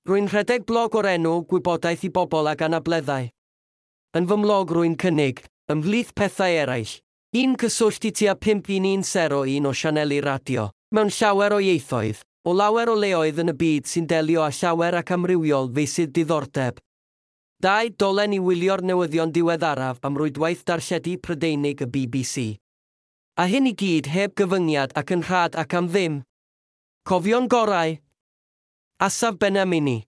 Rwy'n rhedeg blog o'r enw Gwybodaeth i Bobl ag Anableddau. Yn fy mlog rwy'n cynnig, ymhlith pethau eraill, un cyswllt i tua 51101 o sianeli radio, mewn llawer o ieithoedd, o lawer o leoedd yn y byd sy'n delio â llawer ac amrywiol feysydd diddordeb. 2 dolen i wylio'r newyddion diweddaraf am rwydwaith darlledu Prydeinig y BBC. A hyn i gyd heb gyfyngiad ac yn rhad ac am ddim. Cofio'n gorau. Asaf Benamini.